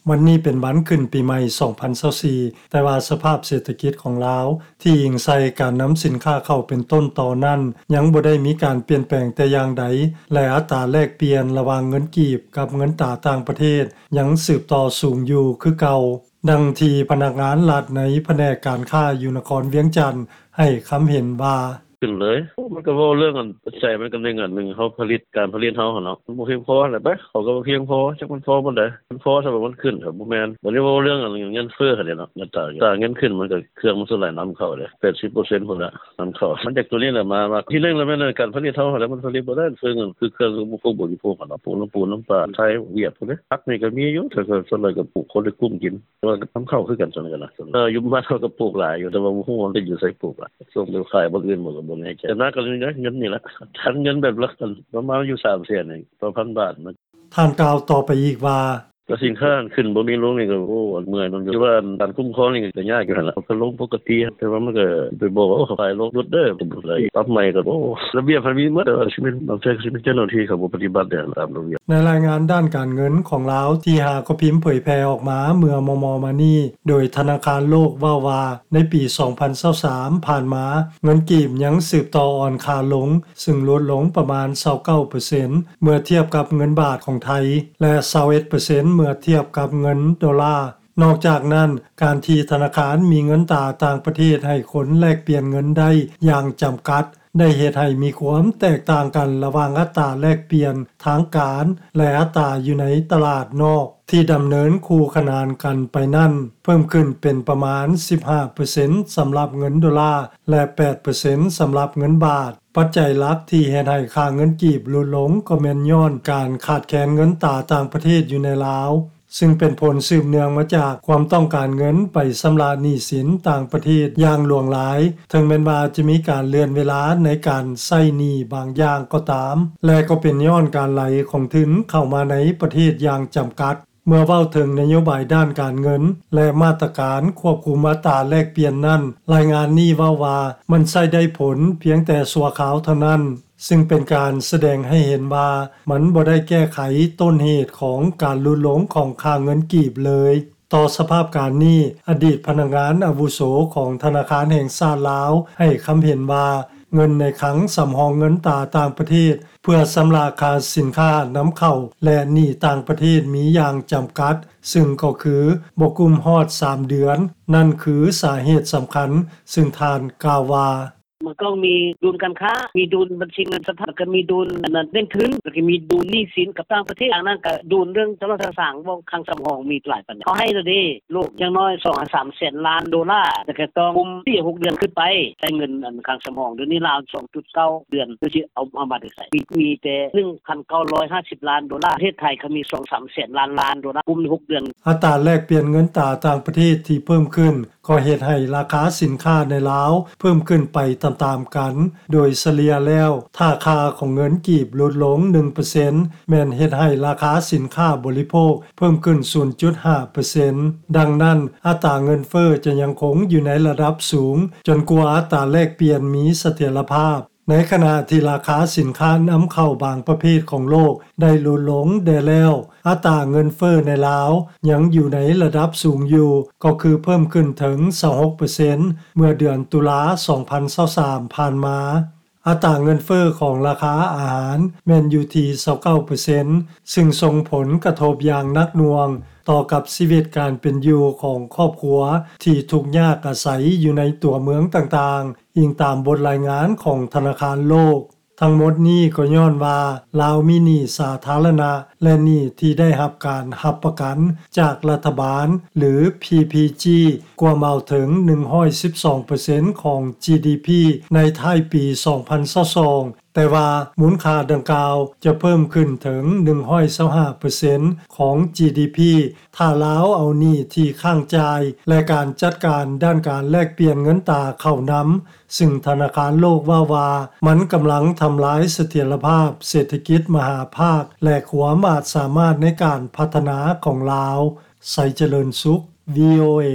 ວັນນີ້ເປັນວັນຂຶ້ນປີໃໝ່ສອງພັນຊາວສີ່ ແຕ່ວ່າສະພາບເສດຖະກິດຂອງລາວ ທີ່ອີງໃສ່ການນຳສິນຄ້າເຂົ້າເປັນຕົ້ນຕໍນັ້ນ ຍັງບໍ່ໄດ້ມີການປ່ຽນແປງແຕ່ຢ່າງໃດ ແລະ ອັດຕາແລກປ່ຽນລະຫວ່າງເງິນກີບກັບເງິນຕາຕ່າງປະເທດ ຍັງສືບຕໍ່ສູງຢູ່ຄືເກົ່າ. ດັ່ງທີ່ພະນັກງານລັດໃນພະແນກການຄ້າຢູ່ນະຄອນວຽງຈັນ ໃຫ້ຄຳເຫັນວ່າ: ຂຶ້ນເລີຍ ໂອ້ ມັນກໍເວົ້າເລື່ອງອັນ ປັດໄຈມັນກໍໜຶ່ງອັນໜຶ່ງ ເຮົາຜະລິດ ການຜະລິດເຮົາຫັ້ນເນາະ ມັນບໍ່ພຽງພໍຫັ້ນແຫຼະ ໄປ ເຂົາກໍບໍ່ພຽງພໍ ຈັກມັນພໍປານໃດ ມັນພໍສ່ຳວ່າມັນຂຶ້ນ ກໍບໍ່ແມ່ນ ບັດນີ້ເວົ້າເລື່ອງອັນເງິນເຟີ້ຫັ້ນແຫຼະເນາະ ເງິນຕາ ຕາເງິນຂຶ້ນ ມັນກໍເຄື່ອງມັນສ່ວນຫຼາຍນຳເຂົ້າເດ້ ແປດສິບເປີເຊັນພຸ້ນລະນຳເຂົ້າ ມັນຈາກໂຕນີ້ແຫຼະມາ ມາ ທີໜຶ່ງລະແມ່ນການຜະລິດເຮົາຫັ້ນແຫຼະ ມັນຜະລິດບໍ່ໄດ້ ເຄື່ອງ ຄືເຄື່ອງອຸປະໂພກບໍລິໂພກຫັ້ນເນາະ ປູນ ປູນ ນ້ຳປາ ໄທ ຫວຽດພຸ້ນເດ້ ຜັກນີ້ກໍມີຢູ່ ແຕ່ກໍສ່ວນຫຼາຍກໍປູກ ຄົນໄດ້ກຸ້ມກິນ ແຕ່ວ່ານຳເຂົ້າຄືກັນ ສ່ວນນີ້ກໍນະ ເອີ ຢູ່ບ້ານເຮົາກໍປູກຫຼາຍຢູ່ ແຕ່ວ່າບໍ່ຮູ້ວ່າມັນໄປຢູ່ໃສປູກຫຼາຍ ສົ່ງໄປຂາຍບ່ອນອື່ນບໍ່ກໍບໍ່ແນ່ໃຈ ແຕ່ໜັກກໍເງິນນີ້ລະ ຄັນເງິນແບບລະ ປະມານຢູ່ສາມແສນນີ້ຕໍ່ພັນບາດ. ທ່ານກ່າວຕໍ່ໄປອີກວ່າ: ກໍສິນຄ້າຂຶ້ນບໍ່ມີລົງນີ້ກໍ ໂອ້ ເມື່ອຍນຳຢູ່ ແຕ່ວ່າການຄຸ້ມຄອງນີ້ກໍຍາກຢູ່ຫັ້ນລະ ເຂົາກໍລົງປົກກະຕິ ແຕ່ວ່າມັນກໍໄປບອກວ່າ ໂອ້ ເຂົາຂາຍລົງ ຫຼຸດເດີ ປັບໃໝ່ກໍ ໂອ້ ລະບຽບມັນມີໝົດ ແຕ່ວ່າຊິເປັນ ບາງເທື່ອກໍຊິເປັນເຈົ້າໜ້າທີ່ເຂົາບໍ່ປະຕິບັດແດ່ຕາມລະບຽບ. ໃນລາຍງານດ້ານການເງິນຂອງລາວ ທີ່ຫາກໍພິມເຜີຍແຜ່ອອກມາເມື່ອມໍ່ໆມານີ້ ໂດຍທະນາຄານໂລກເວົ້າວ່າ ໃນປີສອງພັນຊາວສາມຜ່ານມາ ເງິນກີບຍັງສືບຕໍ່ອ່ອນຄ່າລົງ ຊຶ່ງຫຼຸດລົງປະມານຊາວເກົ້າເປີເຊັນ ເມື່ອທຽບກັບເງິນບາດຂອງໄທ ແລະ ຊາວເອັດເປີເຊັນ ເມື່ອທຽບກັບເງິນໂດລາ. ນອກຈາກນັ້ນ, ການທີ່ທະນາຄານມີເງິນຕາຕ່າງປະເທດໃຫ້ຄົນແລກປ່ຽນເງິນໄດ້ຢ່າງຈຳກັດ ໄດ້ເຮັດໃຫ້ມີຄວາມແຕກຕ່າງກັນລະຫວ່າງອັດຕາແລກປ່ຽນທາງການ ແລະ ອັດຕາຢູ່ໃນຕະຫຼາດນອກ ທີ່ດຳເນີນຄູ່ຂະໜານກັນໄປນັ້ນ ເພີ່ມຂຶ້ນເປັນປະມານສິບຫ້າເປີເຊັນສຳລັບເງິນໂດລາ ແລະ ແປດເປີເຊັນສຳລັບເງິນບາດ. ປັດໄຈຫຼັກທີ່ເຮັດໃຫ້ຄ່າເງິນກີບຫຼຸດລົງກໍແມ່ນຍ້ອນການຂາດແຄນເງິນຕາຕ່າງປະເທດຢູ່ໃນລາວ, ຊຶ່ງເປັນຜົນສືບເນື່ອງມາຈາກຄວາມຕ້ອງການເງິນໄປຊຳລະໜີ້ສິນຕ່າງປະເທດຢ່າງຫຼວງຫຼາຍ, ເຖິງແມ່ນວ່າຈະມີການເລື່ອນເວລາໃນການໃຊ້ໜີ້ບາງຢ່າງກໍຕາມ, ແລະ ກໍເປັນຍ້ອນການໄຫຼຂອງທຶນເຂົ້າມາໃນປະເທດຢ່າງຈຳກັດ. ເມື່ອເວົ້າເຖິງນະໂຍບາຍດ້ານການເງິນ ແລະ ມາດຕະການຄວບຄຸມອັດຕາແລກປ່ຽນນັ້ນ, ລາຍງານນີ້ເວົ້າວ່າ ມັນໃຊ້ໄດ້ຜົນພຽງແຕ່ຊົ່ວຄາວເທົ່ານັ້ນ, ຊຶ່ງເປັນການສະແດງໃຫ້ເຫັນວ່າ ມັນບໍ່ໄດ້ແກ້ໄຂຕົ້ນເຫດຂອງການຫຼຸດລົງຂອງຄ່າເງິນກີບເລີຍ. ຕໍ່ສະພາບການນີ້, ອະດີດພະນັກງານອາວຸໂສຂອງທະນາຄານແຫ່ງຊາດລາວ ໃຫ້ຄຳເຫັນວ່າ ເງິນໃນຄັງສຳຮອງເງິນຕາຕ່າງປະເທດ ເພື່ອຊຳລະຄ່າສິນຄ້ານຳເຂົ້າ ແລະ ໜີ້ຕ່າງປະເທດມີຢ່າງຈຳກັດ, ຊຶ່ງກໍຄືບໍ່ກຸ້ມຮອດສາມເດືອນ. ນັ້ນຄືສາເຫດສຳຄັນ, ຊຶ່ງທ່ານກ່າວວ່າ: ມັນຕ້ອງມີດຸນການຄ້າ, ມີດຸນບັນຊີເງິນສະພັດ, ແລ້ວກໍມີດຸນອັນນັ້ນເໜັງທຶນ, ແລ້ວກໍມີດຸນໜີ້ສິນກັບຕ່າງປະເທດ. ອັນນັ້ນກໍດຸນເລື່ອງໂທລະທັດສາງ, ເວົ້າຄັງສຳຮອງມີຫຼາຍປານໃດ. ເຂົາໃຫ້ແລ້ວເດ້ ໂລກຢ່າງໜ້ອຍສອງຫາສາມແສນລ້ານໂດລາ, ແຕ່ກໍຕ້ອງກຸ້ມສີ່ຫົກເດືອນຂຶ້ນໄປ ໃຊ້ເງິນອັນຄັງສຳຮອງ. ດຽວນີ້ລາວສອງຈຸດເກົ້າເດືອນ ເພິ່ນຊິເອົາ ເອົາມາແຕ່ໃສ? ມີ ມີແຕ່ໜຶ່ງພັນເກົ້າຮ້ອຍຫ້າສິບລ້ານໂດລາ, ປະເທດໄທກໍມີສອງສາມແສນລ້ານລ້ານໂດລາ ກຸ້ມໃນຫົກເດືອນ. ອັດຕາແລກປ່ຽນເງິນຕາຕ່າງປະເທດທີ່ເພີ່ມຂຶ້ນ ກໍເຮັດໃຫ້ລາຄາສິນຄ້າໃນລາວເພີ່ມຂຶ້ນໄປຕາມໆກັນ. ໂດຍສະເລ່ຍແລ້ວ, ຖ້າຄ່າຂອງເງິນກີບຫຼຸດລົງໜຶ່ງເປີເຊັນ ແມ່ນເຮັດໃຫ້ລາຄາສິນຄ້າບໍລິໂພກເພີ່ມຂຶ້ນສູນຈຸດຫ້າເປີເຊັນ. ດັ່ງນັ້ນ, ອັດຕາເງິນເຟີ້ຈະຍັງຄົງຢູ່ໃນລະດັບສູງ ຈົນກວ່າອັດຕາແລກປ່ຽນມີສະຖຽນລະພາບ. ໃນຂະນະທີ່ລາຄາສິນຄ້ານຳເຂົ້າບາງປະເພດຂອງໂລກໄດ້ຫຼຸດລົງແດ່ແລ້ວ, ອັດຕາເງິນເຟີ້ໃນລາວຍັງຢູ່ໃນລະດັບສູງຢູ່, ກໍຄືເພີ່ມຂຶ້ນເຖິງຊາວຫົກເປີເຊັນ ເມື່ອເດືອນຕຸລາສອງພັນຊາວສາມຜ່ານມາ. ອັດຕາເງິນເຟີ້ຂອງລາຄາອາຫານແມ່ນຢູ່ທີ່ຊາວເກົ້າເປີເຊັນ ຊຶ່ງສົ່ງຜົນກະທົບຢ່າງໜັກໜ່ວງຕໍ່ກັບຊີວິດການເປັນຢູ່ຂອງຄອບຄົວທີ່ທຸກຍາກອາໄສຢູ່ໃນຕົວເມືອງຕ່າງໆ. ອີງຕາມບົດລາຍງານຂອງທະນາຄານໂລກ. ທັງໝົດນີ້ກໍຍ້ອນວ່າລາວມີໜີ້ສາທາລະນະ ແລະ ໜີ້ທີ່ໄດ້ຮັບການຮັບປະກັນຈາກລັດຖະບານ ຫຼື ພີພີຈີ ກວມເອົາເຖິງໜຶ່ງຮ້ອຍສິບສອງເປີເຊັນຂອງຈີດີພີໃນທ້າຍປີສອງພັນຊາວສອງ, ແຕ່ວ່າມູນຄ່າດັ່ງກ່າວຈະເພີ່ມຂຶ້ນເຖິງໜຶ່ງຮ້ອຍຊາວຫ້າເປີເຊັນຂອງຈີດີພີ ຖ້າລາວເອົາໜີ້ທີ່ຄ້າງຈ່າຍ ແລະ ການຈັດການດ້ານການແລກປ່ຽນເງິນຕາເຂົ້ານຳ, ຊຶ່ງທະນາຄານໂລກເວົ້າວ່າ ມັນກຳລັງທຳລາຍສະຖຽນລະພາບເສດຖະກິດມະຫາພາກ ແລະ ຄວາມອາດສາມາດໃນການພັດທະນາຂອງລາວ. ໄຊຈະເລີນສຸກ ວີໂອເອ.